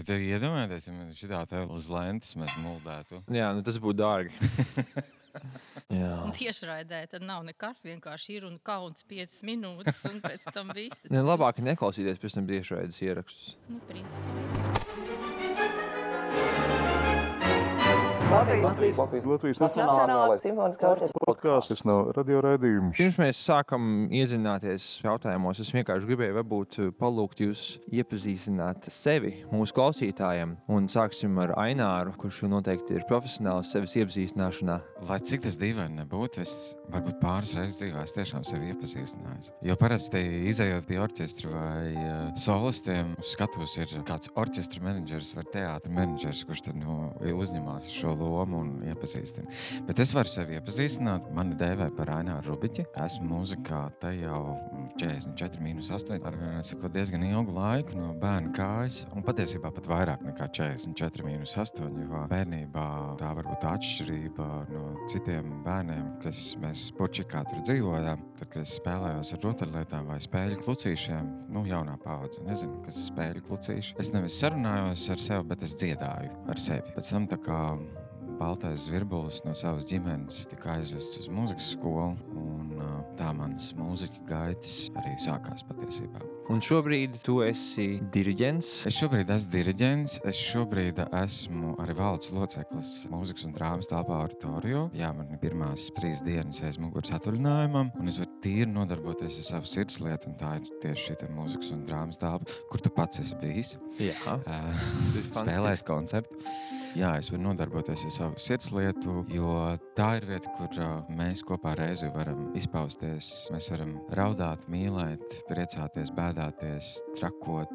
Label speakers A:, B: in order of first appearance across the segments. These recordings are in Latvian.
A: Bet iedomājieties, ja man šitā te uz lentes mēs muldētu.
B: Jā, nu tas būtu dārgi. Jā.
C: Tiešraidē tad nav nekas, vienkārši ir un kauns 5 minūtes, un pēc tam viss.
B: Ne, labāk neklausīties pēc tam tiešraides ierakstus.
C: Nu, principā.
D: Latvijas Nacionālais simfoniskais podkāsts no radioraidījuma.
B: Pirms mēs sākam iedzināties jautājumos, es vienkārši gribēju varbūt palūgt jūs iepazīstināt sevi mūsu klausītājiem. Un sāksim ar Aināru, kurš noteikti ir profesionāls sevis iepazīstināšanā.
A: Lai cik tas dīvaini nebūtu, es varbūt pāris reizes dzīvē tiešām sevi iepazīstinājis. Jo parasti izejot pie orķestra vai solistiem, uz skatuves ir kāds orķestra menedžers vai teātra menedžers, kurš tad uzņemās šo lomu un iepazīstina. Bet es varu sevi iepazīstināt. Mani dēvē par Aināru Rubiķi. Esmu mūzikā te jau 44-8 ar diezgan ilgu laiku no bērna kājas. Un patiesībā pat vairāk nekā 44-8, jo bērnībā tā varbūt atšķirība no citiem bērniem, kas mēs Porčikā tur dzīvojām. Tad, kad es spēlējos ar rotaļlietām vai spēļu klucīšiem, jaunā paudze, nezinu, kas ir spēļu klucīši. Es nevis sarunājos ar sevi, bet es dziedāju ar sevi. Pēc tam tā kā baltais zvirbulis no savas ģimenes tika aizvests uz mūzikas skolu, un tā manas mūziķa gaitas arī sākās patiesībā.
B: Un šobrīd tu esi diriģents?
A: Es šobrīd esmu diriģents, es šobrīd esmu arī valdes loceklis mūzikas un drāmas telpā Oratorio. Jā, man ir pirmās 3 dienas aiz muguras atvaļinājumam, un es varu tīri nodarboties ar savu sirdslietu, un tā ir tieši šī mūzikas un drāmas telpa, kur tu pats esi bijis.
B: Jā.
A: Spēlējis koncertu. Jā, es varu nodarboties ar savu sirdslietu, jo tā ir vieta, kur mēs kopā reizi varam izpausties. Mēs varam raudāt, mīlēt, priecāties, bēdāties, trakot,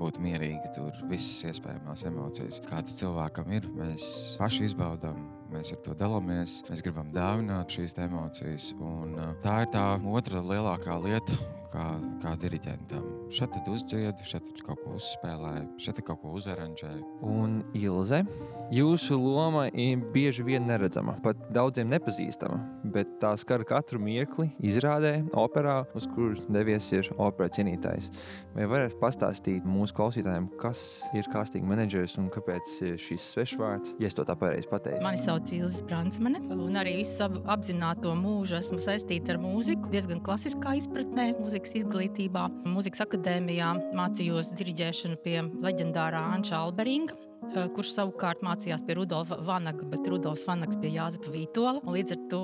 A: būt mierīgi tur, visas iespējamās emocijas. Kādas cilvēkam ir, mēs paši izbaudām, mēs ar to dalāmies, mēs gribam dāvināt šīs emocijas, un tā ir tā otra lielākā lieta, kā diriģentam. Šeit tad uzdziedu, šeit kaut ko uzspēlēju, šeit kaut ko uzaranžēju.
B: Un Ilze, jūsu loma ir bieži vien neredzama, pat daudziem nepazīstama, bet tā skar katru mirkli izrādē, operā, uz kuras devies ir opera cienītājs. Vai varat pastāstīt mūsu klausītājiem, kas ir casting menedžers un kāpēc šis svešvārds, ja es to tā pareizi pateicu?
C: Mani sauc Ilze Spransmane, un arī visu savu apzināto mūžu esmu saistīta ar mūziku, diezgan klasiskā izpratnē, mūzikas izglītībā. Mūzikas akadēmijā mācījos diriģēšanu pie leģendārā Anča Alberinga, kurš savukārt mācījās pie Rudolfa Vanaga, bet Rudolfs Vanags pie Jāzepa Vītola. Līdz ar to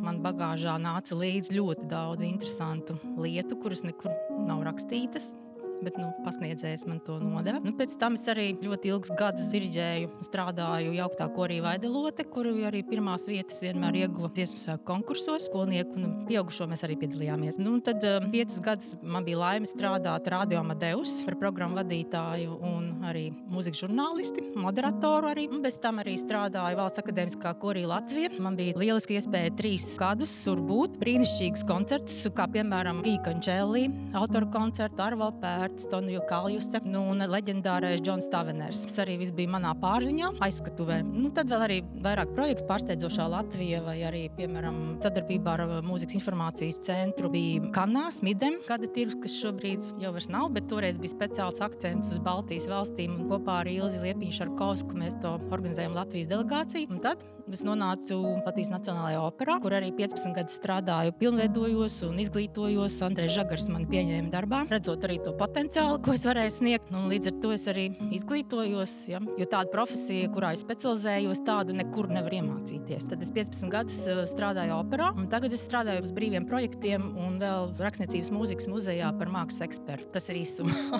C: man bagāžā nāca līdz ļoti daudz interesantu lietu, kuras nekur nav rakstītas. Bet pasniedzējs man to nodeva. Pēc tam es arī ļoti ilgus gadus diriģēju, strādāju jauktā korī Vaidelote, kuru arī pirmās vietas vienmēr ieguva dziesmu svētku konkursos. Skolnieku un pieaugušo mēs arī piedalījāmies. Tad 5 gadus man bija laime strādāt Radio Amadeus par programmu vadītāju un arī mūzikas žurnālisti, moderatoru arī. Bez tam arī strādāju Valsts akadēmiskā korī Latvija. Man bija lieliski iespēja 3 gadus tur būt. Brīnišķīgus koncertus, kā piemēram Gija Končelli, autoru koncertu, Arvo Pēr, Toniju Kaljuste, un leģendārais Džons Taveners. Tas arī viss bija manā pārziņā, aizskatuvē. Tad vēl arī vairāk projektu pārsteidzošā Latvija vai arī, piemēram, sadarbībā ar Mūzikas informācijas centru bija Kanā, Smidem, gada tirgus, kas šobrīd jau vairs nav, bet toreiz bija speciāls akcents uz Baltijas valstīm, un kopā ar Ilzi Liepiņu-Šarkovsku mēs to organizējam Latvijas delegāciju. Un tad es nonācu Latvijas Nacionālajā operā, kur arī 15 gadus strādāju, pilnveidojos un izglītojos. Andrejs Žagars mani pieņēma darbā, redzot arī to potenciālu, ko es varēju sniegt. Līdz ar to es arī izglītojos, jo tāda profesija, kurā es specializējos, tādu nekur nevar iemācīties. Tad es 15 gadus strādāju operā, un tagad es strādāju uz brīviem projektiem un vēl Rakstniecības mūzikas muzejā par mākslas ekspertu. Tas ir īsumā.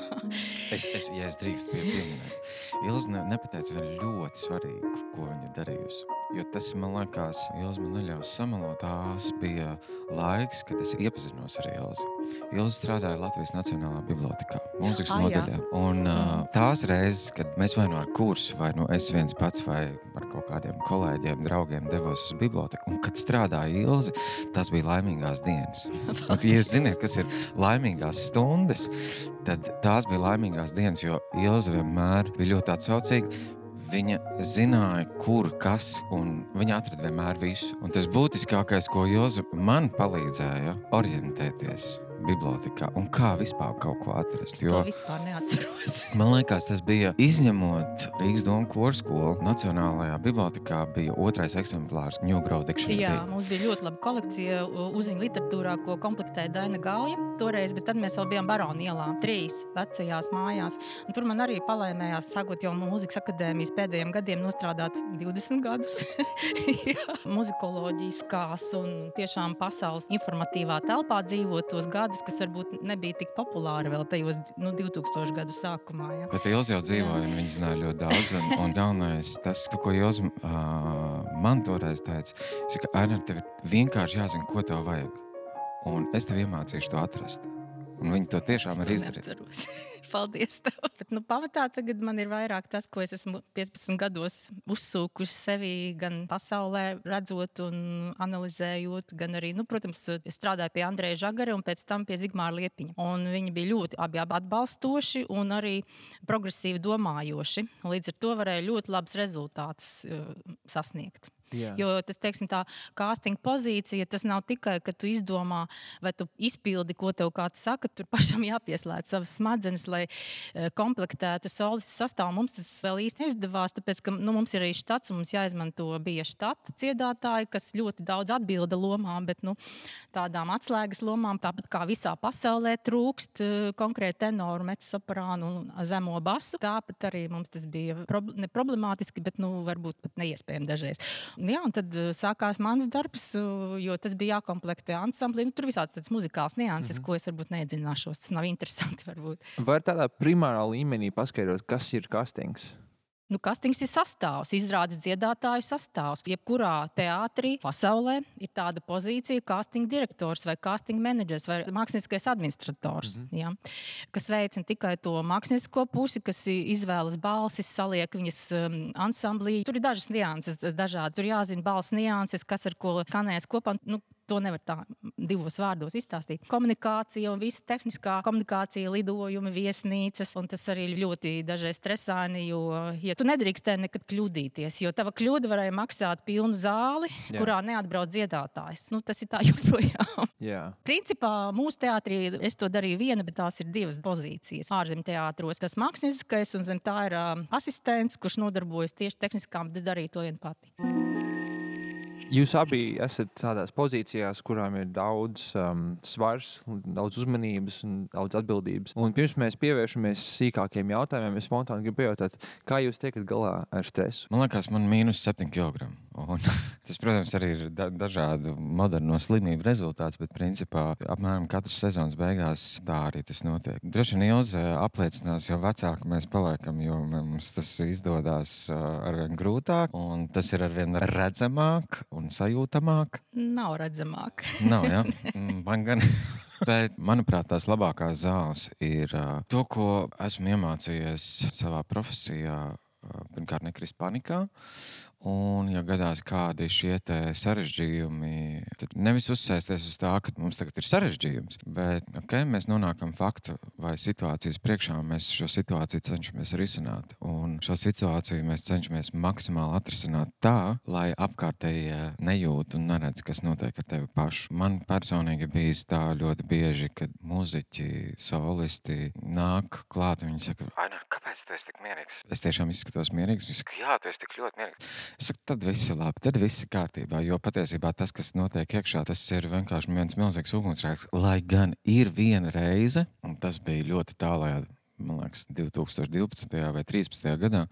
A: Ja es drīkstu pieminēt, Ilze nepateica vēl ļoti svarīgu, ko viņa darījusi. Jo tas, man liekas, Ilze man neļaus samalot. Tās bija laiks, kad es iepazinos ar Ilzi. Ilze strādāja Latvijas Nacionālā bibliotekā, mūzikas nodaļā. Un tās reizes, kad mēs vai ar kursu, vai es viens pats, vai ar kaut kādiem kolēģiem, draugiem devos uz biblioteku, un kad strādāja Ilze, tās bija laimīgās dienas. Un, ja jūs ziniet, kas ir laimīgās stundas, tad tās bija laimīgās dienas, jo Ilze vienmēr bija ļoti atsaucīga. Viņa zināja, kur, kas, un viņa atrada vienmēr visu. Un tas būtiskākais, ko Ilze man palīdzēja orientēties bibliotekā un kā vispār kaut ko atrast.
C: To vispār neatceros.
A: Man liekas, tas bija izņemot Rīgas domu korskolu. Nacionālajā bibliotekā bija 2. eksemplārs New Grow Dictionary.
C: Jā, mums bija ļoti laba kolekcija uziņu literatūrā, ko komplektēja Daina Gauja toreiz, bet tad mēs vēl bijām Barona ielā, 3 vecajās mājās. Un tur man arī palaimējās, sākot jau Mūzikas akadēmijas pēdējiem gadiem, nostrādāt 20 gadus. Muzikoloģiskās un tiešām pasaules informatīvā telpā dzīvot tos gadus, kas varbūt nebija tik populāri vēl tajos 2000 gadu sākumā. Ja.
A: Bet Ilze jau dzīvoja, un viņi zināja ļoti daudz. Un galvenais tas, ko Ilze man toreiz teica, ka Aina, tev ir vienkārši jāzina, ko tev vajag. Un es tev iemācīšu to atrast. Un viņi to tiešām arī izdarīja.
C: Paldies tev. Bet, pamatā tagad man ir vairāk tas, ko es esmu 15 gados uzsūkuši sevi gan pasaulē redzot un analizējot, gan arī, protams, es strādāju pie Andreja Žagara un pēc tam pie Zigmāra Liepiņa. Un viņi bija ļoti abi atbalstoši un arī progresīvi domājoši. Līdz ar to varēja ļoti labus rezultātus sasniegt. Jā. Jo tas, teiksim, tā casting pozīcija, tas nav tikai, ka tu izdomā vai tu izpildi, ko tev kāds saka, tur pašam jāpieslēdz savas smadzenes, lai komplektētu solistu sastāvu. Mums tas vēl īsti neizdevās, tāpēc, ka mums ir arī štats un mums jāizmanto bija štata dziedātāji, kas ļoti daudz atbilda lomām, bet tādām atslēgas lomām, tāpat kā visā pasaulē trūkst konkrēti tenoru, mezzosoprānu un zemo basu. Tāpat arī mums tas bija neproblemātiski, bet varbūt pat neiespējami dažreiz. Jā, un tad sākās mans darbs, jo tas bija jākomplektē ansamblī. Tur visāds tāds muzikāls nianses, ko es varbūt neiedzināšos. Tas nav interesanti varbūt.
B: Var tādā primārā līmenī paskaidrot, kas ir castings?
C: Castings ir sastāvs, izrādes dziedātāju sastāvs. Jebkurā teātrī pasaulē ir tāda pozīcija casting direktors vai casting menedžers vai mākslinieckais administrators, ja, kas veic ne tikai to māksliniecisko pusi, kas izvēlas balsis, saliek viņas ansamblī. Tur ir dažas nianses dažādi. Tur jāzina balss nianses, kas ar ko skanēs kopā. To nevar tā 2 vārdos izstāstīt. Komunikācija un visa tehniskā komunikācija, lidojumi, viesnīcas, un tas arī ļoti dažreiz stresaini, jo tu nedrīkstē nekad kļūdīties, jo tava kļūda varēja maksāt pilnu zāli, kurā neatbrauc dziedātājs. Tas ir tā joprojām. Principā mūsu teātrī es to darīju viena, bet tās ir 2 pozīcijas. Ārzem teātros tas mākslinieckais un zem tā ir asistents, kurš nodarbojas tieši tehniskām, bet es darīju to vien pati.
B: Jūs abi esat tādās pozīcijās, kurām ir daudz svars, daudz uzmanības un daudz atbildības. Un pirms mēs pievēršamies sīkākiem jautājumiem, es spontāni gribu pajautāt, kā jūs tiekat galā ar stresu?
A: Man liekas, man -7 kilogramu. Un tas, protams, arī ir dažādu moderno slimību rezultāts, bet principā apmēram katras sezonas beigās tā arī tas notiek. Droši vien Ilze apliecinās, jo vecāki mēs paliekam, jo mums tas izdodas arvien grūtāk, un tas ir arvien redzamāk un sajūtamāk.
C: Nav redzamāk.
A: Nav, jā. Man gan. Bet, manuprāt, tās labākās zāles ir to, ko esmu iemācījies savā profesijā, pirmkārt nekrist panikā. Un, ja gadās kādi šie sarežģījumi, tad nevis uzsēsties uz tā, ka mums tagad ir sarežģījums, bet mēs nonākam faktu vai situācijas priekšā, un mēs šo situāciju cenšamies risināt. Un šo situāciju mēs cenšamies maksimāli atrisināt tā, lai apkārtējie nejūt un neredz, kas notiek ar tevi pašu. Man personīgi bijis tā ļoti bieži, kad muziķi, solisti nāk klāt, un viņi saka, Aina, kāpēc tu esi tik mierīgs? Es tiešām izskatos mierīgs. Viņi saka, jā, tu esi tik ļoti mierīgs. Es saku, tad viss ir labi, tad viss ir kārtībā, jo patiesībā tas, kas notiek iekšā, tas ir vienkārši viens milzīgs ugunsgrēks, lai gan ir viena reize, un tas bija ļoti tālajā, man liekas, 2012. vai 2013. gadā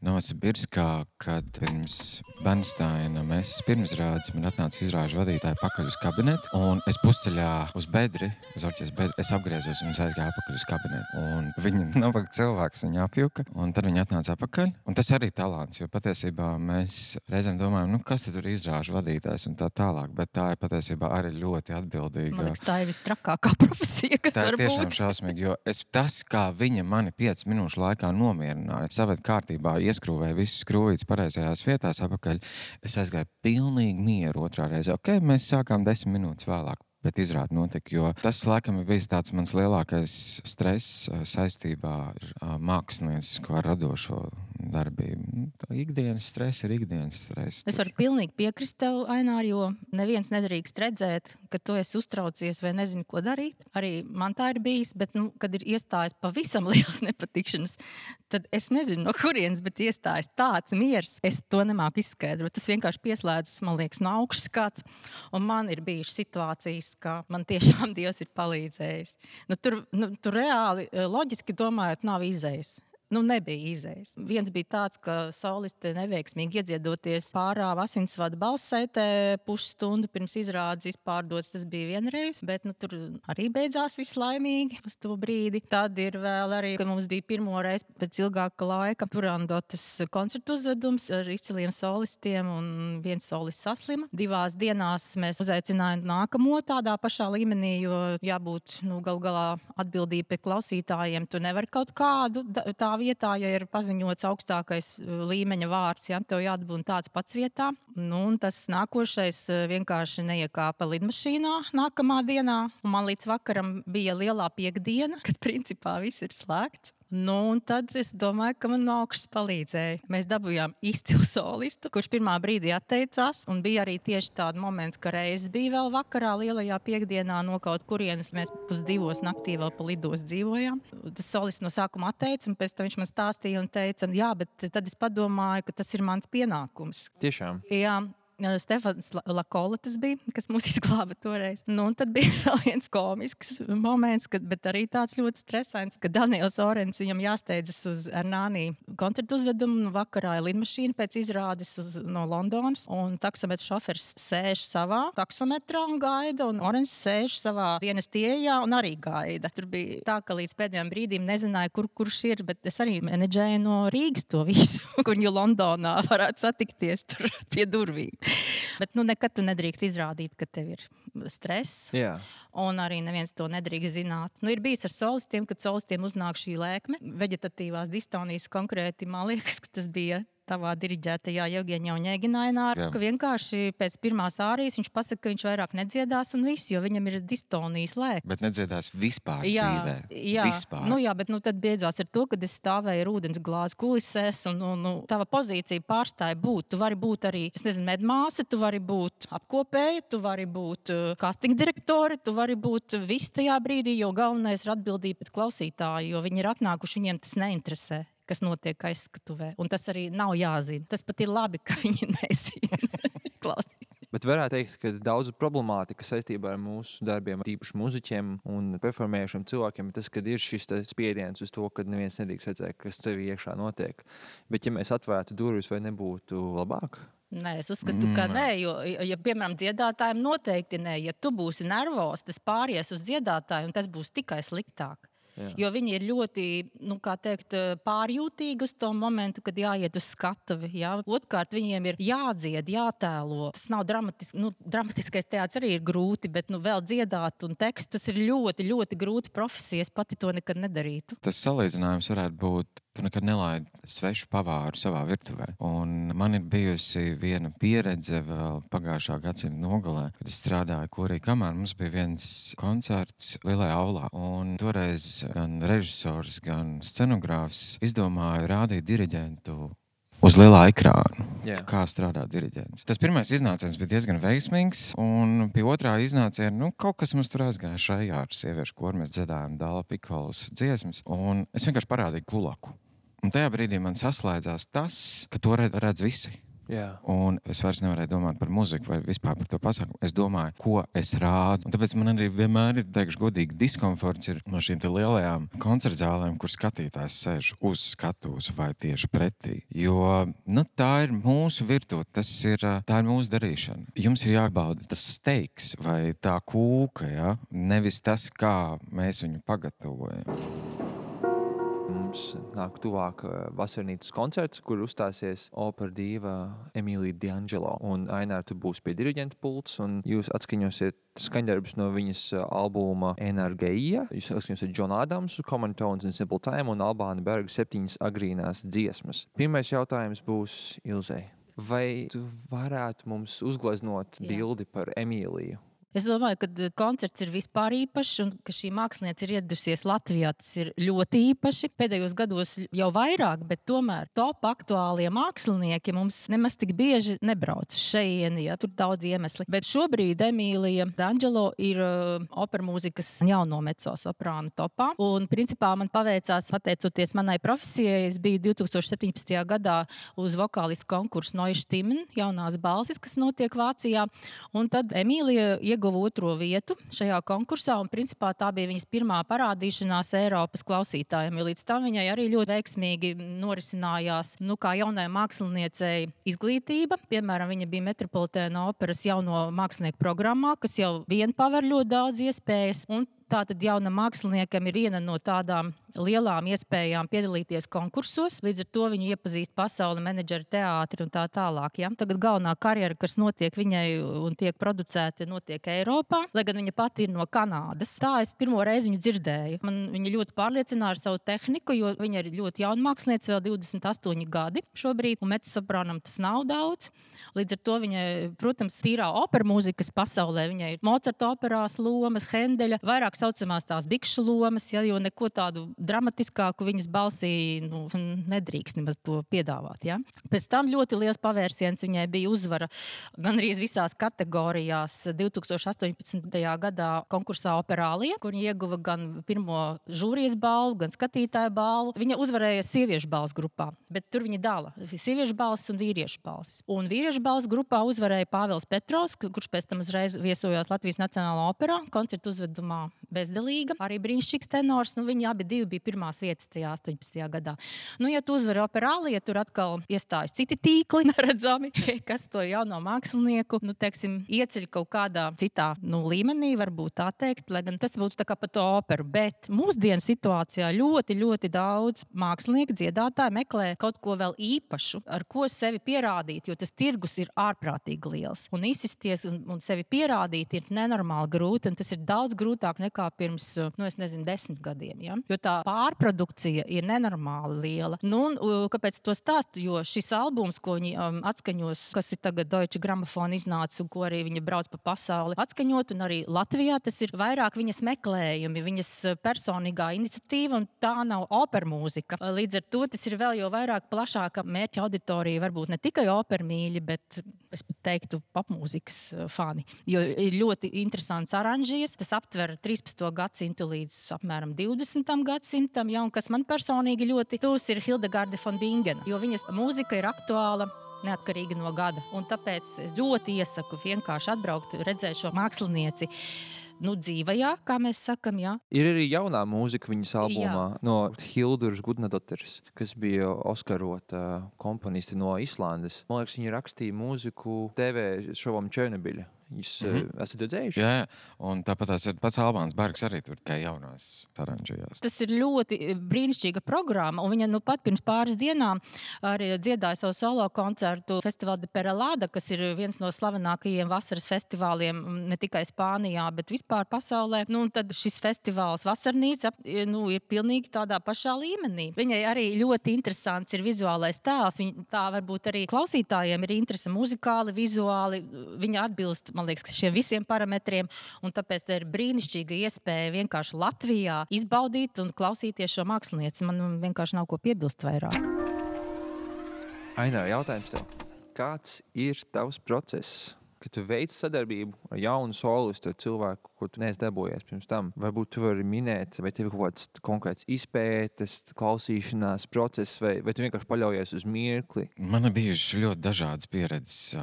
A: Novosibirskā, kad pirms Bernsteina mēs pirmizrādes, man atnāca izrāžu vadītāji pakaļ uz kabinetu, un es pusceļā uz bedri, uz orķestra bedri, es apgriezos un es aizgāju apakaļ uz kabinetu. Un viņi nabaga cilvēks, viņi apjuka, un tad viņi atnāca apakaļ. Un tas arī talants, jo patiesībā mēs reizēm domājam, kas tad tur ir izrāžu vadītājs un tā tālāk, bet tā ir patiesībā arī ļoti atbildīga.
C: Man liekas, tā ir vistrakākā profesija, kas var būt.
A: Tā ir tiešām šausmīgi, jo tas, kā viņa mani 5 minūšu laikā nomierināja, saved kārtībā, ieskrūvēja visas skrūvītes pareizajās vietās apakaļ. Es aizgāju pilnīgi mieru otrā reize. Mēs sākām 10 minūtes vēlāk, bet izrādi notika, jo tas laikam ir bijis tāds mans lielākais stress saistībā ar māksliniecisko radošo darbību. Ikdienas stress ir ikdienas stress.
C: Es varu pilnīgi piekrist tev, Ainār, jo neviens nedrīkst redzēt, ka tu esi uztraucies vai nezini, ko darīt. Arī man tā ir bijis, bet, kad ir iestājis pavisam liels nepatikšanas, tad es nezinu, no kurienes, bet iestājis tāds miers. Es to nemāku izskaidrot. Tas vienkārši pieslēdzas, man liekas, no augšas kāds. Un man ir bijušas situācijas, ka man tiešām Dievs ir palīdzējis. Tur reāli, loģiski domājot, nav izējas. Nebija izējas. Viens bija tāds, ka soliste neveiksmīgi iedziedoties pārāva asinsvada balssaitē pusstundu pirms izrādes izpārdots. Tas bija vienreiz, bet tur arī beidzās viss laimīgi uz to brīdi. Tad ir vēl arī, ka mums bija pirmo reizi pēc ilgāka laika Purandotas koncertu uzvedums ar izciliem solistiem un viens solists saslima. 2 dienās mēs uzaicinājām nākamo tādā pašā līmenī, jo jābūt galu galā atbildība pie klausītājiem. Tu nevari kaut kādu tā vietā, ja ir paziņots augstākais līmeņa vārds, ja tev jāatbūt tāds pats vietā. Un tas nākošais vienkārši neiekāpa lidmašīnā nākamā dienā. Un man līdz vakaram bija lielā piekdiena, kad principā viss ir slēgts. Un tad es domāju, ka man no augšas palīdzēja. Mēs dabūjām izcilu solistu, kurš pirmā brīdī atteicās. Un bija arī tieši tāds moments, ka reizes bija vēl vakarā lielajā piekdienā no kaut kurienes. Mēs 2:00 naktī vēl pa lidos dzīvojām. Tas solists no sākuma atteica, un pēc tam viņš man stāstīja un teica, jā, bet tad es padomāju, ka tas ir mans pienākums.
B: Tiešām?
C: Jā. Stefans Lakola tas bija, kas mūs izglāba toreiz. Un tad bija vēl viens komisks moments, bet arī tāds ļoti stresains, ka Daniels Orens viņam jāsteidzas uz Ernānī koncertu uzvedumu. Vakarā ir lidmašīna pēc izrādes no Londonas, un taksometrs šofers sēž savā taksometrā un gaida, un Orens sēž savā dienas ieejā un arī gaida. Tur bija tā, ka līdz pēdējiem brīdīm nezināju, kurš ir, bet es arī menedžēju no Rīgas to visu, kur jau Londonā varētu satikties tur pie durvīm. Bet nekad tu nedrīkst izrādīt, ka tev ir stress.
B: Jā.
C: Un arī neviens to nedrīkst zināt. Ir bijis ar solistiem, kad solistiem uznāk šī lēkme. Veģetatīvās distonijas konkrēti, man liekas, ka tas bija tavā diriģētajā Jevgeņa Oņēgina, ka vienkārši pēc pirmās ārijas viņš pasaka, ka viņš vairāk nedziedās un viss, jo viņam ir distonijas lēkme.
A: Bet nedziedās vispār dzīvē.
C: Jā.
A: Vispār.
C: Bet tad beidzās ar to, kad es stāvēju ar ūdens glāzi kulisēs un tava pozīcija pārstāja būt. Tu vari būt arī, medmāsa, tu vari būt apkopēja, tu vari būt casting direktori, tu vari būt viss tajā brīdī, jo galvenais ir atbildība pret klausītāju, jo viņi ir atnākuši, viņiem tas neinteresē, kas notiek aizskatuvē. Un tas arī nav jāzina. Tas pat ir labi, ka viņi nezina.
B: Bet varētu teikt, ka daudz problemātika saistībā ar mūsu darbiem, tīpaši muziķiem un performējušiem cilvēkiem, tas, kad ir šis spiediens uz to, ka neviens nedrīkst redzēt, kas tev iekšā notiek. Bet ja mēs atvērtu durvis, vai nebūtu labāk?
C: Nē, es uzskatu, ka nē, jo, ja, piemēram, dziedātājiem noteikti nē. Ja tu būsi nervos, tas pāries uz dziedātāju, un tas būs tikai sliktāk. Jā. Jo viņi ir ļoti, pārjūtīgi uz to momentu, kad jāiet uz skatuvi. Jā. Otrkārt, viņiem ir jādzied, jātēlo. Tas nav dramatiskais teātris arī ir grūti, bet vēl dziedāt un tekstu, tas ir ļoti, ļoti grūti profesija. Es pati to nekad nedarītu.
A: Tas salīdzinājums varētu būt, tu nekad nelaidi svešu pavāru savā virtuvē. Un man ir bijusi viena pieredze vēl pagājušā gadsimta nogalē, kad es strādāju korī kamā. Mums bija viens koncerts lielajā aulā. Un toreiz gan režisors, gan scenogrāfs izdomāja rādīt diriģentu uz lielā ekrāna.
B: Yeah.
A: Kā strādā diriģents. Tas pirmais iznāciens bija diezgan veiksmīgs, un pie otrā iznāciena kaut kas mums tur aizgāja šajā ar sieviešu koru. Mēs dziedājām Dāla Pikolas dziesmas, un es vienkārši parādīju Klulaku. Un tajā brīdī man saslēdzās tas, ka to redz visi.
B: Jā.
A: Un es vairs nevarēju domāt par muziku vai vispār par to pasākumu. Es domāju, ko es rādu. Un tāpēc man arī vienmēr ir, teikšu godīgi, diskomforts ir no šīm te lielajām koncertzālēm, kur skatītājs sēž uz skatuves vai tieši pretī. Jo tā ir mūsu virtūte, tā ir mūsu darīšana. Jums ir jābauda tas steiks vai tā kūka, ja? Nevis tas, kā mēs viņu pagatavojam.
B: Mums nāk tuvāk vasarnīcas koncerts, kur uzstāsies opera dīva Emīlija D'Angelo. Un Ainār, tu būsi pie diriģenta pults, un jūs atskaņosiet skaņdarbus no viņas albuma Energeija. Jūs atskaņosiet John Adams, Common Tones and Simple Time un Albāna Berga 7 agrīnās dziesmas. Pirmais jautājums būs Ilzei. Vai tu varētu mums uzgleznot bildi par Emīliju?
C: Es domāju, ka koncerts ir vispār īpašs un ka šī mākslinieca ir ieradusies Latvijā. Tas ir ļoti īpaši. Pēdējos gados jau vairāk, bet tomēr top aktuālie mākslinieki mums nemaz tik bieži nebrauc uz šejieni, ja tur daudz iemesli. Bet šobrīd Emīlija D'Angelo ir opermūzikas jauno mezzosoprānu topā. Un principā man paveicās, pateicoties manai profesijai, es biju 2017. gadā uz vokālistu konkursu Neue Stimmen, jaunās balsis, kas notiek Vācijā. Un tad Emīlija ieguva otro vietu šajā konkursā, un principā tā bija viņas pirmā parādīšanās Eiropas klausītājiem, jo līdz tam viņai arī ļoti veiksmīgi norisinājās, kā jaunai māksliniecei izglītība. Piemēram, viņa bija Metropolitēna operas jauno mākslinieku programmā, kas jau vien paver ļoti daudz iespējas, un tātad jaunam māksliniekam ir viena no tādām lielām iespējām piedalīties konkursos. Līdz ar to viņu iepazīst pasauli, menedžeri, teātri un tā tālāk. Ja? Tagad galvenā karjera, kas notiek viņai un tiek producēta, notiek Eiropā, lai gan viņa pati ir no Kanādas. Tā es pirmo reizi viņu dzirdēju. Viņa ļoti pārliecināja ar savu tehniku, jo viņa ir ļoti jauna mākslinieca, vēl 28 gadi šobrīd, un mezzosoprānam tas nav daudz. Līdz ar to viņai, protams, tīrā opera mūzikas pasaulē, viņai ir Mocarta operās lomas, Hendeļa, vairāk saucamās tās bikšu lomas, ja, jo neko tādu dramatiskāku viņas balsī nedrīkst nemaz to piedāvāt. Ja. Pēc tam ļoti liels pavērsiens viņai bija uzvara gandrīz visās kategorijās 2018. gadā konkursā Operālija, kur viņa ieguva gan pirmo žūrijas balvu, gan skatītāju balvu. Viņa uzvarēja sieviešu balvas grupā, bet tur viņa dala sieviešu balvas un vīriešu balvas. Un vīriešu balvas grupā uzvarēja Pāvils Petrovs, kurš pēc tam uzreiz viesojās Latvijas Nacionālā operā, koncertu uzvedumā Bezdelīga, arī brīnišķīgs tenors. Viņi abi bija pirmās vietas tajā 18. gadā. Ja tu uzvari Operālija, tur atkal iestājas citi tīkli neredzami, kas to jauno mākslinieku, teiksim, ieceļ kaut kādā citā līmenī, varbūt tā teikt, lai gan tas būtu tā kā pa to operu. Bet mūsdienu situācijā ļoti, ļoti daudz mākslinieku, dziedātāji meklē kaut ko vēl īpašu, ar ko sevi pierādīt, jo tas tirgus ir ārprātīgi liels. Un izsisties un sevi pierādīt ir nenormāli grūti, un tas ir daudz grūtāk nekā pirms, 10 gadiem. Ja? Jo tā pārprodukcija ir nenormāli liela. Kāpēc to stāstu? Jo šis albums, ko viņi atskaņos, kas ir tagad Deutsche Grammophon iznācis un ko arī viņa brauc pa pasauli atskaņot, un arī Latvijā tas ir vairāk viņas meklējumi, viņas personīgā iniciatīva, un tā nav opera mūzika. Līdz ar to tas ir vēl jau vairāk plašāka mērķa auditorija, varbūt ne tikai opermīļi, bet es pat teiktu popmūzikas fani. Jo ir ļoti interesants aranžijas, tas aptver 13. gadsimtu līdz apmēram 20. gadsimtam, ja, un kas man personīgi ļoti tūs ir Hildegarde von Bingen, jo viņas mūzika ir aktuāla neatkarīgi no gada. Un tāpēc es ļoti iesaku vienkārši atbraukt, redzēt šo mākslinieci dzīvajā, kā mēs sakam, jā.
B: Ir arī jaunā mūzika viņas albumā no Hilduras Gudnadotteres, kas bija Oskarota komponiste no Islandes. Man liekas, viņa rakstīja mūziku TV šovam Černobiļa. Jūs esat redzējuši?
A: Jā, un tāpat tās ir pats Albāns Bergs arī tur tikai jaunās aranžējās.
C: Tas ir ļoti brīnišķīga programma, un viņa pat pirms pāris dienām arī dziedāja savu solo koncertu Festival de Perelada, kas ir viens no slavenākajiem vasaras festivāliem ne tikai Spānijā, bet vispār pasaulē. Tad šis festivāls Vasarnīca ir pilnīgi tādā pašā līmenī. Viņai arī ļoti interesants ir vizuālais tēls. Tā varbūt arī klausītājiem ir interese muzikāli, vizuāli. Viņa atbilst, man liekas, šiem visiem parametriem, un tāpēc tā ir brīnišķīga iespēja vienkārši Latvijā izbaudīt un klausīties šo mākslinieci. Man vienkārši nav ko piebilst vairāk.
B: Ainār, jautājums tev. Kāds ir tavs process, kad tu veic sadarbību ar jaunu solistu, ar cilvēku, ko tu neesi dabūjies pirms tam? Varbūt tu vari minēt, vai tev ir kaut kāds konkrēts izpētes, klausīšanās process, vai tu vienkārši paļaujies uz mirkli?
A: Man ir bijuši ļoti dažādas pieredzes,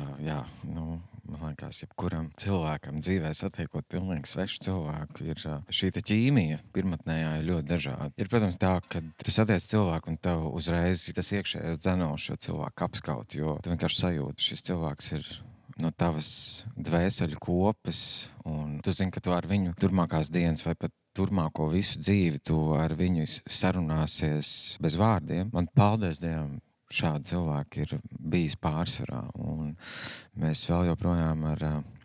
A: man liekas, jebkuram cilvēkam dzīvē satiekot pilnīgi svešu cilvēku, ir šī ķīmija pirmatnējā ir ļoti dažāda. Ir, protams, tā, ka tu satiec cilvēku un tev uzreiz tas iekšējais dzenos šo cilvēku apskaut, jo tu vienkārši sajūti, šis cilvēks ir no tavas dvēseļu kopas, un tu zini, ka tu ar viņu turmākās dienas vai pat turmāko visu dzīvi tu ar viņu sarunāsies bez vārdiem. Man, paldies Dievam, šādi cilvēki ir bijis pārsvarā, un mēs vēl joprojām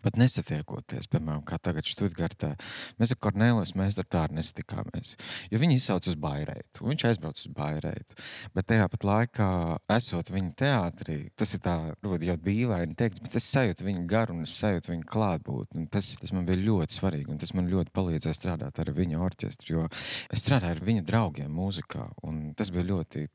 A: pat nesatiekoties, piemēram, kā tagad Štutgartā. Mēs ar Kornēlijas meistaru tā arī nesatikāmies, jo viņi izsauc uz Baireitu, un viņš aizbrauc uz Baireitu. Bet tajā pat laikā, esot viņa teātrī, tas ir tā, jau dīvaini teikts, bet es sajūtu viņu garu un es sajūtu viņu klātbūtni. Tas man bija ļoti svarīgi, un tas man ļoti palīdzēja strādāt ar viņa orķestru, jo es strādāju ar viņa draugiem mūzikā, un tas bija ļoti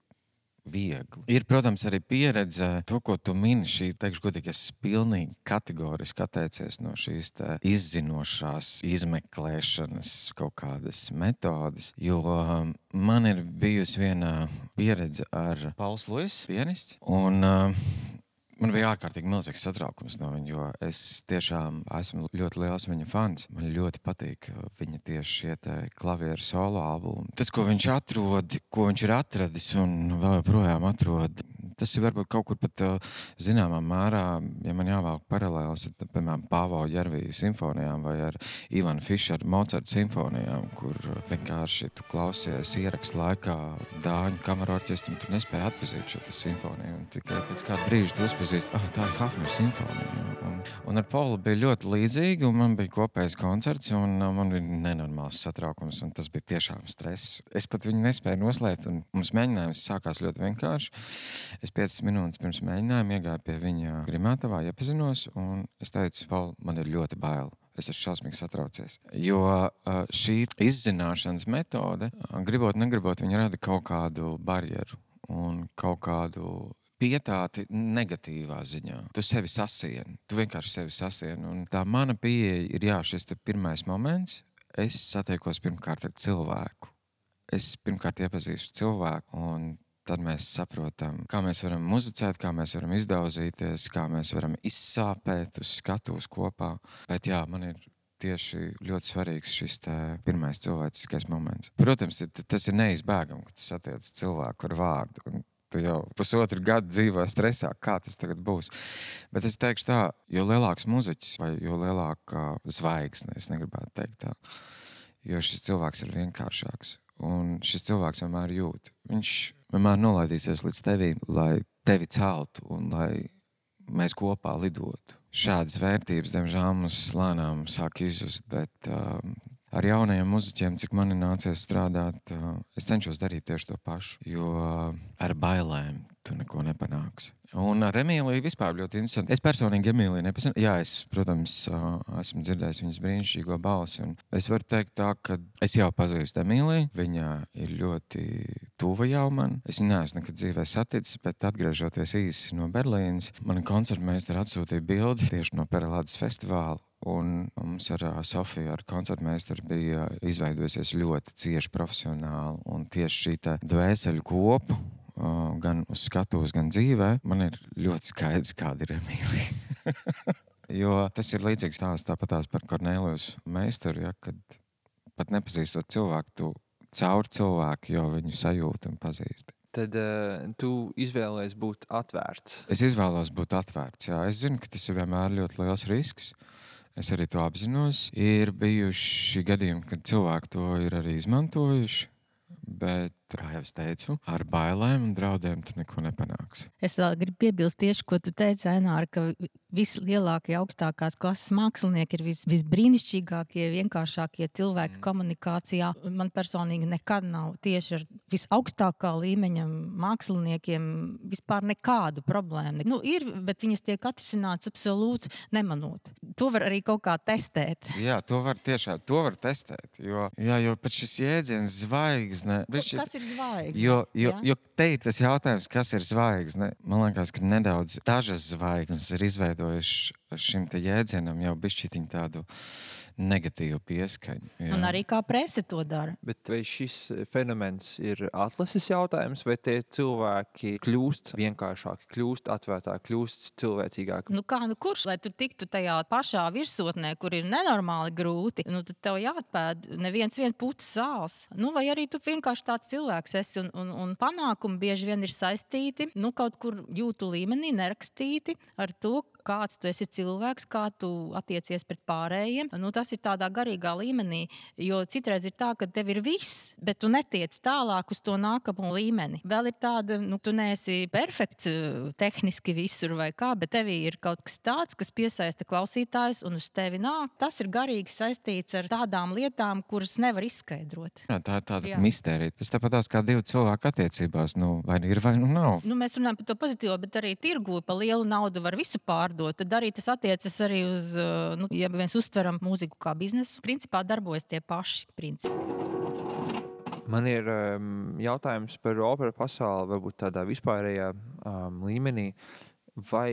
A: viegli. Ir, protams, arī pieredze, to, ko tu mini, šī, teikšu godīgi, es pilnīgi kategoriski atteicies no šīs izzinošās izmeklēšanas kaut kādas metodas, jo man ir bijusi viena pieredze ar Pauls Luis, pianists, un man bija ārkārtīgi milzīgs satraukums no viņa, jo es tiešām esmu ļoti liels viņa fans. Man ļoti patīk viņa tieši šie klavieru solo albumi. Tas, ko viņš atrod, ko viņš ir atradis un vēl joprojām atrod, tas ir varbūt kaut kur pat zināmā mērā, ja man jāvelk paralēlis, piemēram, Pāvo Ģerviju simfonijām vai ar Ivanu Fišeru Mocarta simfonijām, kur vienkārši tu klausies ierakstu laikā Dāņu kamerorķestru un tu nespēji atpazīt šo simfoniju. Un tikai pēc kāda brīža tu uzpazīst, tā ir Hafner simfonija. Un ar Paulu bija ļoti līdzīgi, un man bija kopējs koncerts, un man bija nenormāls satraukums, un tas bija tiešām stress. Es pat viņu nespēju noslēpt, un mums mēģinājums sākās ļoti vienkārši. Es 5 minūtes pirms mēģinājuma iegāju pie viņa grimētavā, iepazinos, un es teicu, Paul, man ir ļoti bail. Es esmu šausmīgi satraucies. Jo šī izzināšanas metode, gribot, negribot, viņa rada kaut kādu barjeru un kaut kādu pietāti negatīvā ziņā. Tu sevi sasieni. Tu vienkārši sevi sasieni. Un tā mana pieeja ir, šis pirmais moments. Es satiekos pirmkārt ar cilvēku. Es pirmkārt iepazīstu cilvēku, un tad mēs saprotam, kā mēs varam muzicēt, kā mēs varam izdauzīties, kā mēs varam izsāpēt uz skatuves kopā. Bet man ir tieši ļoti svarīgs šis pirmais cilvēciskais moments. Protams, tas ir neizbēgami, ka tu satiec cilvēku ar vārdu. Un tu jau pusotru gadu dzīvo stresā, kā tas tagad būs. Bet es teikšu tā, jo lielāks muziķis vai jo lielāka zvaigzne, es negribētu teikt tā, jo šis cilvēks ir vienkāršāks. Un šis cilvēks vienmēr jūt. Viņš vienmēr nolaidīsies līdz tevi, lai tevi celtu un lai mēs kopā lidotu. Šādas vērtības, diemžēl, mums lēnām sāk izzust, bet ar jaunajiem muziķiem, cik man ir nācies strādāt, es cenšos darīt tieši to pašu, jo ar bailēm tu neko nepanāksi. Un ar Emīliju vispār ļoti interesanti. Es personīgi Emīliju nepazinu. Jā, es, protams, esmu dzirdējis viņas brīnišķīgo balsi. Un es varu teikt tā, ka es jau pazīstu Emīliju. Viņa ir ļoti tuva jau man. Es viņu neesmu nekad dzīvē saticis, bet atgriežoties īsi no Berlīnas, man koncertmeistari atsūtīja bildi tieši no Perelādes festivāla. Un mums ar Sofiju, ar koncertmeistaru, bija izveidojusies ļoti cieši profesionāli. Un tieši šī dvēseļu kopu, gan uz skatuves, gan dzīvē, man ir ļoti skaidrs, kāda ir Emīlija. Jo tas ir līdzīgs tāpatās par Kornēlijas meistaru, kad pat nepazīstot cilvēku, tu caur cilvēku jau viņu sajūti un pazīsti.
B: Tad tu izvēlējies būt atvērts.
A: Es izvēlos būt atvērts, jā. Es zinu, ka tas ir vienmēr ļoti liels risks. Es arī to apzinos. Ir bijuši gadījumi, kad cilvēki to ir arī izmantojuši, bet, kā jau es teicu, ar bailēm un draudiem tu neko nepanāksi.
C: Es vēl gribu piebilst tieši, ko tu teici, Aināra, ka vislielākie, augstākās klases mākslinieki ir visbrīnišķīgākie, vienkāršākie cilvēki komunikācijā. Man personīgi nekad nav tieši ar visaugstākā līmeņa māksliniekiem vispār nekādu problēmu. Ir, bet viņas tiek atrisināts absolūti nemanot. To var arī kaut kā testēt.
A: Jā, to var testēt, jo pat šis jēdziens zvaigzne.
C: Kas ir zvaigzne?
A: Jo te ir tas jautājums, kas ir zvaigzne. Man liekas, ka nedaudz dažas zvaigznes ir izveidojuši šim te jēdzienam jau bišķiņu tādu negatīvu pieskaņu. Jā.
C: Un arī kā prese to dara.
B: Bet vai šis fenomens ir atlases jautājums, vai tie cilvēki kļūst vienkāršāki, kļūst atvērtāki, kļūst cilvēcīgāki?
C: Kurš, lai tu tiktu tajā pašā virsotnē, kur ir nenormāli grūti, tad tev jāatpēd neviens putas sāls. Vai arī tu vienkārši tāds cilvēks esi un panākumi bieži vien ir saistīti, kaut kur jūtu līmenī nerakstīti ar to, kāds tu esi cilvēks, kā tu attiecies pret pārējiem. Tas tas ir tādā garīgā līmenī, jo citreiz ir tā, ka tev ir viss, bet tu netiec tālāk uz to nākamo līmeni. Vēl ir tāda, tu neesi perfekts tehniski visur vai kā, bet tevī ir kaut kas tāds, kas piesaista klausītājus un uz tevi nāk. Tas ir garīgi saistīts ar tādām lietām, kuras nevar izskaidrot.
A: Jā, tā ir tāda mistērija. Tas tāpatās kā divu cilvēku attiecībās, vai ir vai nav.
C: Mēs runājam par to pozitīvo, bet arī tirgu pa lielu naudu var visu pārdot. Tad arī tas attiecas arī uz, ja mēs uztveram mūziku kā biznesu, principā darbojas tie paši principi.
B: Man ir jautājums par operu pasauli, varbūt tādā vispārējā līmenī. Vai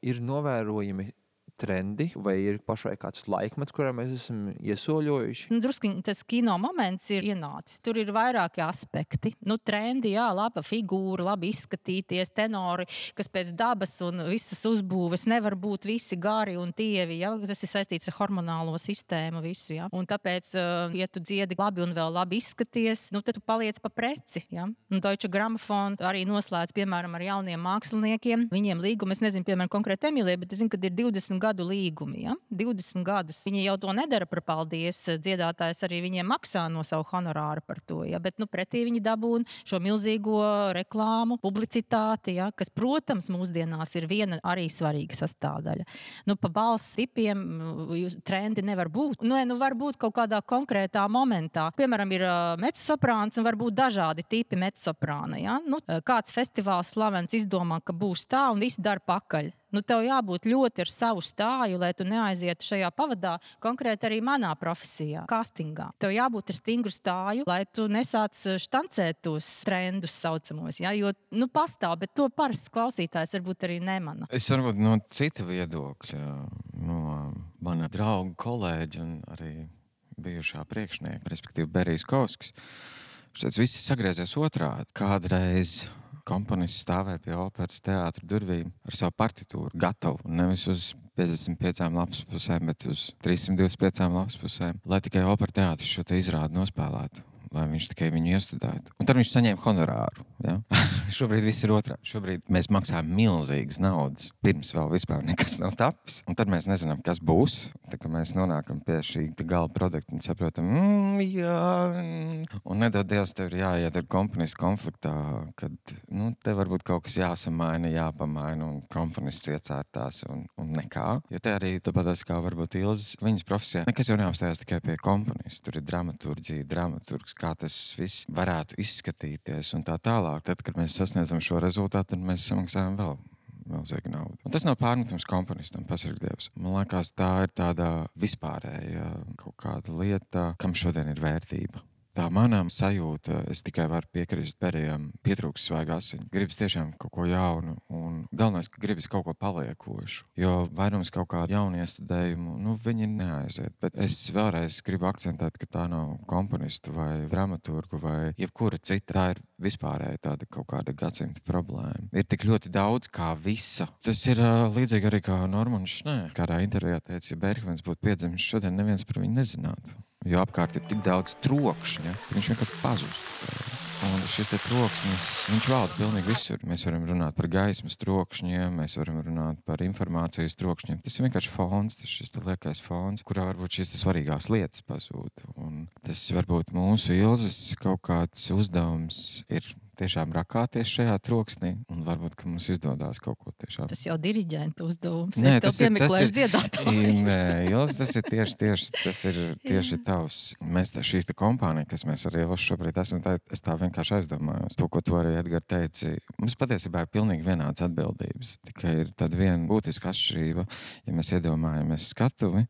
B: ir novērojami trendi, vai ir pašai kāds laikmets, kurā mēs esam iesoļojuši?
C: Druskiņi tas kino moments ir ienācis. Tur ir vairāki aspekti. Trendi, jā, laba figūra, labi izskatīties, tenori, kas pēc dabas un visas uzbūves nevar būt visi gari un tievi, jā. Tas ir saistīts ar hormonālo sistēmu visu, jā. Un tāpēc, ja tu dziedi labi un vēl labi izskaties, tad tu paliec pa preci, jā. Deutsche Grammophon arī noslēdz, piemēram, ar jauniem māksliniekiem. Viņiem līgumi, es nezinu, piemēram, konkrēti Emīlijai, bet es zinu, ka ir 20 gadu līgumi, ja? 20 gadus. Viņi jau to nedara par paldies. Dziedātājs arī viņiem maksā no savu honorāru par to, ja? Bet pretī viņi dabūna šo milzīgo reklāmu, publicitāti, ja? Kas, protams, mūsdienās ir viena arī svarīga sastāvdaļa. Pa balss sipiem trendi nevar būt. Var būt kaut kādā konkrētā momentā. Piemēram, ir mezzosoprāns un var būt dažādi tipi mezzosoprāna, ja? Kāds festivāls slavens izdomā, ka būs tā un visi dara pakaļ. Tev jābūt ļoti ar savu stāju, lai tu neaizietu šajā pavadā, konkrēti arī manā profesijā, castingā. Tev jābūt ar stingru stāju, lai tu nesāc štancēt tos trendus saucamos, ja? Jo, pastāv, bet to parasts klausītājs varbūt arī nemana.
A: Es varbūt no cita viedokļa, no mana drauga, kolēģa un arī bijušā priekšnieka, respektīvi Berijs Kovskis. Šeit visi sagriezies otrādi. Kādreiz komponists stāvēja pie operas teātra durvīm ar savu partitūru gatavu, nevis uz 55 lapspusēm, bet uz 325 lapspusēm, lai tikai opera teātris šo te izrādi nospēlētu, lai viņš tikai viņu iestudētu. Un tad viņš saņēma honorāru. Ja? Šobrīd viss ir otrādi. Šobrīd mēs maksājam milzīgas naudas, pirms vēl vispār nekas nav tapis. Un tad mēs nezinām, kas būs. Tā kā mēs nonākam pie šī gala produkta un saprotam, jā. Un nedod Dievs, tev ir jāiet ar komponistu konfliktā, kad te varbūt kaut kas jāsamaina, jāpamaina un komponists iecērtās un nekā. Jo te arī tāpatās kā varbūt Ilzes, viņas profesijā, nekas jau neapstājās tikai pie komponista. Tur ir dramaturģija, dramaturgs, kā tas viss varētu izskatīties un tā tālāk. Tad, kad mēs sasniedzam šo rezultātu, tad mēs samaksājam vēl milzīgu naudu. Un tas nav pārmetums komponistam, pasarg Dievs. Man liekas, tā ir tāda vispārēja kaut kāda lieta, kam šodien ir vērtība. Tā manām sajūta, es tikai varu piekrist Berijam, pietrūks svaiga asiņa. Gribas tiešām kaut ko jaunu un galvenais, ka gribas kaut ko paliekošu. Jo vairums kaut kādu jaunu iestudējumu, viņi neaiziet. Bet es vēlreiz gribu akcentēt, ka tā nav komponistu vai dramaturgu vai jebkura cita. Tā ir vispārēja tāda kaut kāda gadsimta problēma. Ir tik ļoti daudz kā visa. Tas ir līdzīgi arī kā Normans Šnē. Kādā intervijā teica, ja Bergmans būtu piedzimis šodien, neviens par viņu nezinātu. Jo apkārt ir tik daudz trokšņa, ka viņš vienkārši pazustu. Un šis troksnis, viņš valda pilnīgi visur. Mēs varam runāt par gaismas trokšņiem, mēs varam runāt par informācijas trokšņiem. Tas ir vienkārši fons, tas šis liekais fons, kurā varbūt šīs svarīgās lietas pazūd. Un tas varbūt mūsu Ilzes kaut kāds uzdevums ir tiešām rakāties šajā troksnī, un varbūt, ka mums izdodās kaut ko tiešām.
C: Tas jau diriģenta uzdevums.
A: Nē,
C: es tev piemeklēšu dziedātājus.
A: Nē, Ilze, tas ir tieši tavs. Mēs šī kompānija, kas mēs arī šobrīd esam, es tā vienkārši aizdomājos. To, ko tu arī, Edgar, teici, mums patiesībā ir pilnīgi vienāds atbildības. Tikai ir tāda viena būtiska atšķirība. Ja mēs iedomājamies skatuvi,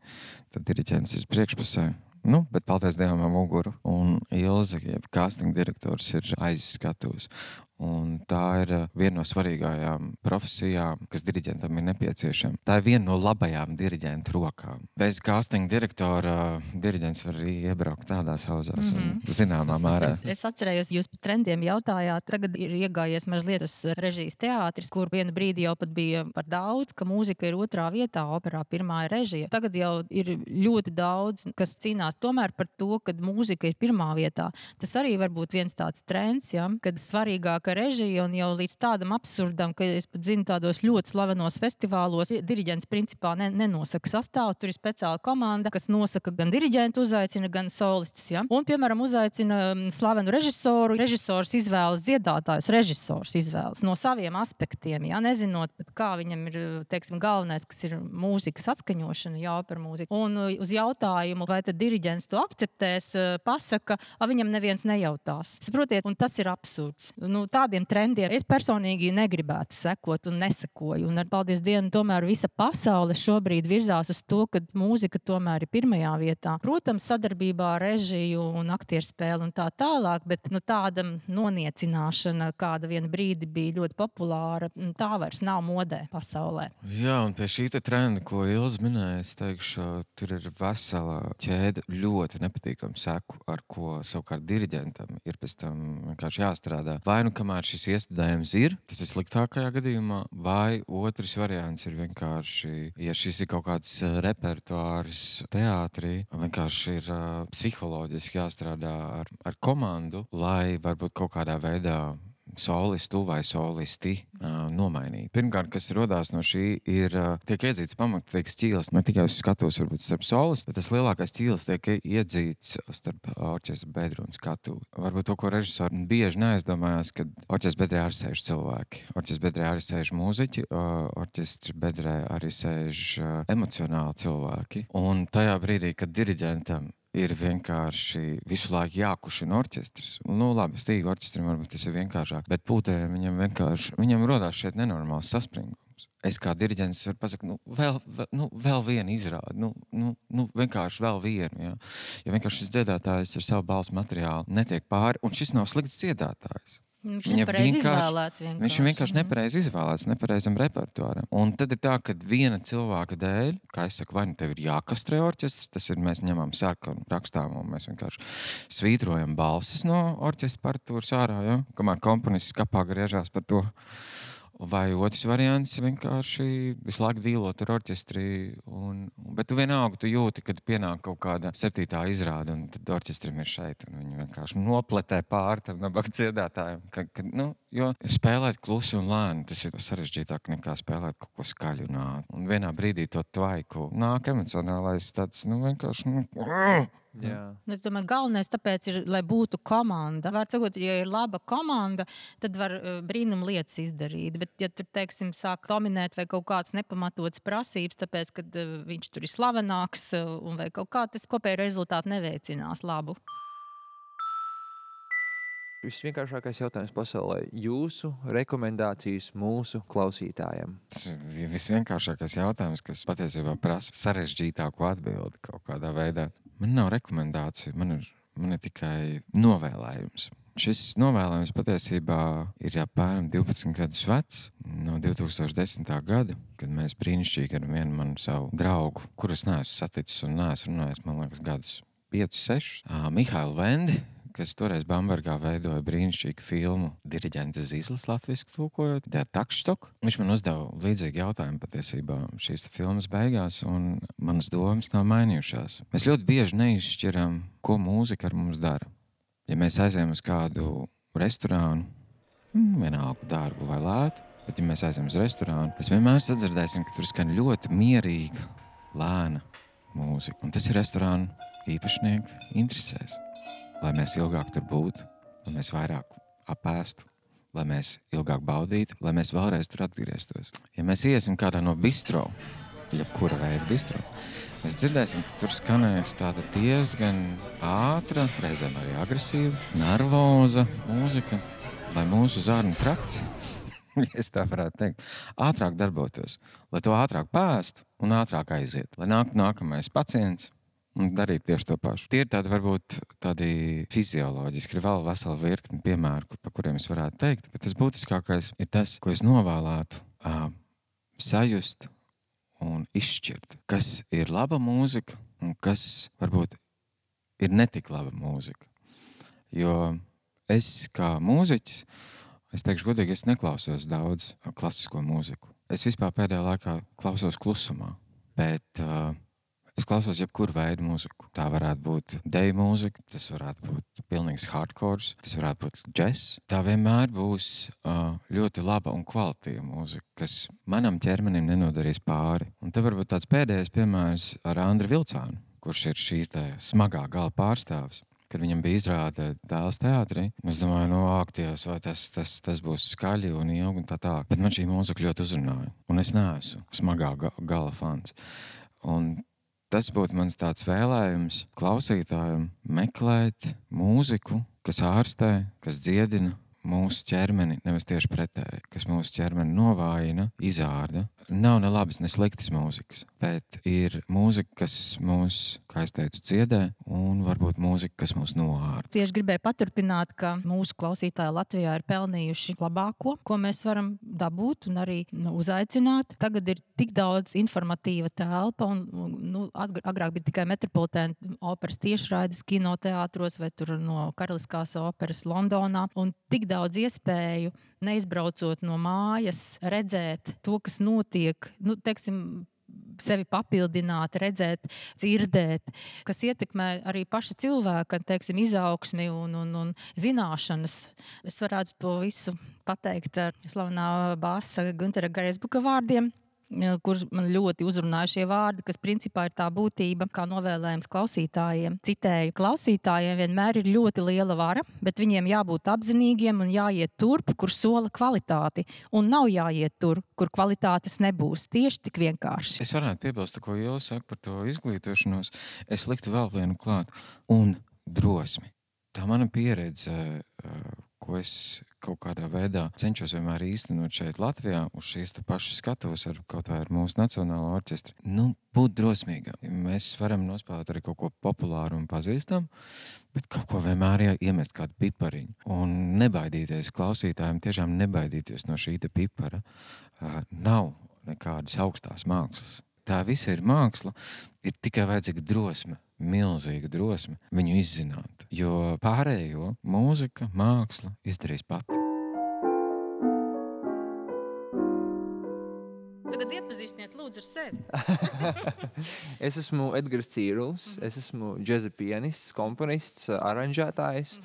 A: tad diriģents ir priekšpusē. Bet paldies Dievam ar muguru. Un Ilze, jeb casting direktors, ir aiz skatuves. Un tā ir viena no svarīgākajām profesijām, kas diriģentam ir nepieciešama. Tā ir viena no labajām diriģentu rokām. Bez casting direktora diriģents var arī iebraukt tādās hauzās un zināmā mērā.
C: Es atcerējos, jūs par trendiem jautājāt. Tagad ir iegājies mazliet tas režijas teātris, kur vienu brīdi jau pat bija par daudz, ka mūzika ir otrā vietā, operā pirmā ir režija. Tagad jau ir ļoti daudz, kas cīnās tomēr par to, kad mūzika ir pirmā vietā. Tas arī var būt viens tāds trends, ja, kad svarīgāk fantastiska režija un jau līdz tādam absurdam, ka es pat zinu tādos ļoti slavenos festivālos, diriģents principā nenosaka sastāvu, tur ir speciāla komanda, kas nosaka gan diriģentu uzaicina, gan solistus, ja? Un, piemēram, uzaicina slavenu režisoru, režisors izvēlas dziedātājus, režisors izvēlas no saviem aspektiem, ja? Nezinot pat kā viņam ir, teiksim, galvenais, kas ir mūzikas atskaņošana, jā, par mūziku. Un uz jautājumu, vai tad diriģents to akceptēs, pasaka, viņam neviens nejautās. Saprotiet, un tas ir absurds. Nu, tādiem trendiem es personīgi negribētu sekot un nesekoju. Un ar paldies Dievam, tomēr visa pasaule šobrīd virzās uz to, ka mūzika tomēr ir pirmajā vietā. Protams, sadarbībā ar režiju un aktierspēli un tā tālāk, bet tāda noniecināšana, kāda vienu brīdi bija ļoti populāra, tā vairs nav modē pasaulē.
A: Jā, un pie šī trenda, ko Ilze minēja, es teikšu, tur ir vesela ķēde ļoti nepatīkama seku, ar ko savukārt diriģentam ir pēc tam vienkārši jāstrādā. Vai nu kamēr šis iestudējums ir, tas ir sliktākajā gadījumā, vai otrs variants ir vienkārši, ja šis ir kaut kāds repertuārs teātrī, vienkārši ir psiholoģiski jāstrādā ar komandu, lai varbūt kaut kādā veidā solistu vai solisti nomainīt. Pirmkārt, kas rodās no šī, ir tiek iedzīts pamatīgs ķīlis, ne tikai uz skatuves, varbūt starp solistu, bet tas lielākais ķīlis tiek iedzīts starp orķestra bedru un skatuvi. Varbūt to, ko režisori bieži neaizdomājās, kad orķestra bedrē arī sēž cilvēki. Orķestra bedrē arī sēž mūziķi, orķestra bedrē arī sēž emocionāli cilvēki. Un tajā brīdī, kad diriģentam ir vienkārši visu laiku jākušina orķestris. Nu, labi, stīga orķestrim varbūt tas ir vienkāršāk, bet pūtējiem viņam rodās šeit nenormāls saspringums. Es kā diriģents varu pasakt, vēl vienu izrādi, vienkārši vēl vienu, ja? Jo vienkārši šis dziedātājs ar savu balss materiālu netiek pāri, un šis nav slikts dziedātājs.
C: Viņš ir
A: vienkārši nepareizi izvēlēts, nepareizam repertuāram. Un tad ir tā, ka viena cilvēka dēļ, kā es saku, vai nu tev ir jākastrē orķestrs, tas ir, mēs ņemam sarkanu, rakstām un mēs vienkārši svītrojam balsis no orķestra partitūras ārā, ja? Kamēr komponists kapā griežās par to. Vai otrs variants vienkārši visu laiku dīlot ar orķestri, bet tu vienalga, tu jūti, kad pienāk kaut kāda 7. izrāde, un tad orķestrim ir šeit, un viņi vienkārši nopletē pāri tam nabaga dziedātājiem. Jo spēlēt klusi un lēni, tas ir sarežģītāk nekā spēlēt kaut ko skaļu un ātru. Un vienā brīdī to tvaiku nāk emocionālais tāds, vienkārši,
B: Jā.
C: Es domāju, galvenais tāpēc ir, lai būtu komanda. Var sakot, ja ir laba komanda, tad var brīnum lietas izdarīt. Bet, ja tur, teiksim, sāk dominēt vai kaut kāds nepamatots prasības, tāpēc, ka viņš tur ir slavenāks un vai kaut kā, tas kopēji rezultāti neveicinās labu.
B: Visvienkāršākais jautājums pasaulē. Jūsu rekomendācijas mūsu klausītājiem?
A: Tas ir visvienkāršākais jautājums, kas patiesībā prasa sarežģītāku atbildi kaut kādā veidā. Man nav rekomendāciju, man ir tikai novēlējums. Šis novēlējums patiesībā ir apmēram 12 gadus vecs, no 2010. gada, kad mēs brīnišķīgi ar vienu manu savu draugu, kurus neesmu saticis un neesmu runājis, man liekas, gadus 5-6, Mihailu Vendi, kas toreiz Bambergā veidoja brīnišķīgu filmu Diriģenta Zīslis latviski tūkojot, Der Taktstock. Viņš man uzdeva līdzīgi jautājumu patiesībā šīs filmas beigās, un manas domas nav mainījušās. Mēs ļoti bieži neizšķiram, ko mūzika ar mums dara. Ja mēs aizējam uz kādu restorānu, vienalga dārgu vai lētu, bet ja mēs aizējam uz restorānu, mēs vienmēr sadzirdēsim, ka tur skan ļoti mierīga, lēna mūzika. Un tas ir restorānu īpašnieku interesēs. Lai mēs ilgāk tur būtu, lai mēs vairāk apēstu, lai mēs ilgāk baudītu, lai mēs vēlreiz tur atgrieztos. Ja mēs iesim kādā no bistro, jebkura veida bistro, mēs dzirdēsim, ka tur skanēs tāda diezgan ātra, reizēm arī agresīva, nervoza mūzika, lai mūsu zārnu trakts, ja es tā varētu teikt, ātrāk darbotos, lai to ātrāk pēstu un ātrāk aiziet, lai nākamais pacients un darīt tieši to pašu. Tie ir tādi, varbūt, tādi fizioloģiski, ir vēl vesela virkni piemēru, pa kuriem es varētu teikt, bet tas būtiskākais ir tas, ko es novēlētu sajust un izšķirt, kas ir laba mūzika un kas, varbūt, ir netik laba mūzika. Jo es kā mūziķis, es teikšu godīgi, es neklausos daudz klasisko mūziku. Es vispār pēdējā laikā klausos klusumā, bet Es klausos jebkuru veidu mūziku. Tā varētu būt deju mūzika, tas varētu būt pilnīgs hardcore, tas varētu būt džess. Tā vienmēr būs ļoti laba un kvalitīva mūzika, kas manam ķermenim nenodarīs pāri. Un te varbūt tāds pēdējais piemērs ar Andri Vilcānu, kurš ir šī smagā gala pārstāvis. Kad viņam bija izrāde Dēls teātrī, es domāju, ak, Dievs, vai tas būs skaļi un ilgi un tā tā. Bet man šī mūzika ļoti uzrunāja, un es neesmu smagā gala fans. Un tas būtu mans tāds vēlējums klausītājiem meklēt mūziku, kas ārstē, kas dziedina mūsu ķermeni, nevis tieši pretēji, kas mūsu ķermeni novājina, izārda. Nav ne labas, ne sliktas mūzikas, bet ir mūzika, kas mūs, kā es teicu, dziedē, un varbūt mūzika, kas mūs noārda.
C: Tieši gribēju paturpināt, ka mūsu klausītāji Latvijā ir pelnījuši labāko, ko mēs varam dabūt un arī uzaicināt. Tagad ir tik daudz informatīva telpa, un agrāk bija tikai Metropolitēna operas tiešraides kinoteātros vai tur no Karaliskās operas Londonā, un tik daudz iespēju, neizbraucot no mājas, redzēt to, kas notiek, teiksim, sevi papildināt, redzēt, dzirdēt, kas ietekmē arī paša cilvēka, teiksim, izaugsmi un zināšanas. Es varētu to visu pateikt ar slavenā bāsa Guntera Greisbuka vārdiem, kur man ļoti uzrunāja šie vārdi, kas principā ir tā būtība, kā novēlējums klausītājiem. Citēju, klausītājiem vienmēr ir ļoti liela vara, bet viņiem jābūt apzinīgiem un jāiet turp, kur sola kvalitāti, un nav jāiet tur, kur kvalitātes nebūs. Tieši tik vienkārši.
A: Es varētu piebilst, ko Iela saka par to izglītošanos. Es liktu vēl vienu klāt. Un drosmi. Tā mana pieredze, ko es kaut kādā veidā cenšos vienmēr īstenot šeit Latvijā, uz šīs pašas skatuves ar kaut vai ar mūsu nacionālo orķestri. Būt drosmīgam. Mēs varam nospēlēt arī kaut ko populāru un pazīstam, bet kaut ko vienmēr iemest kādu pipariņu. Un nebaidīties klausītājiem, tiešām nebaidīties no šī pipara. Nav nekādas augstās mākslas. Tā visa ir māksla, ir tikai vajadzīga drosme, milzīga drosme viņu izzināt, jo pārējo mūzika, māksla izdarīs pati.
C: Tagad iepazīstiniet lūdzu ar sevi.
B: Es esmu Edgars Cīrulis, es esmu džeza pianists, komponists, aranžētājs.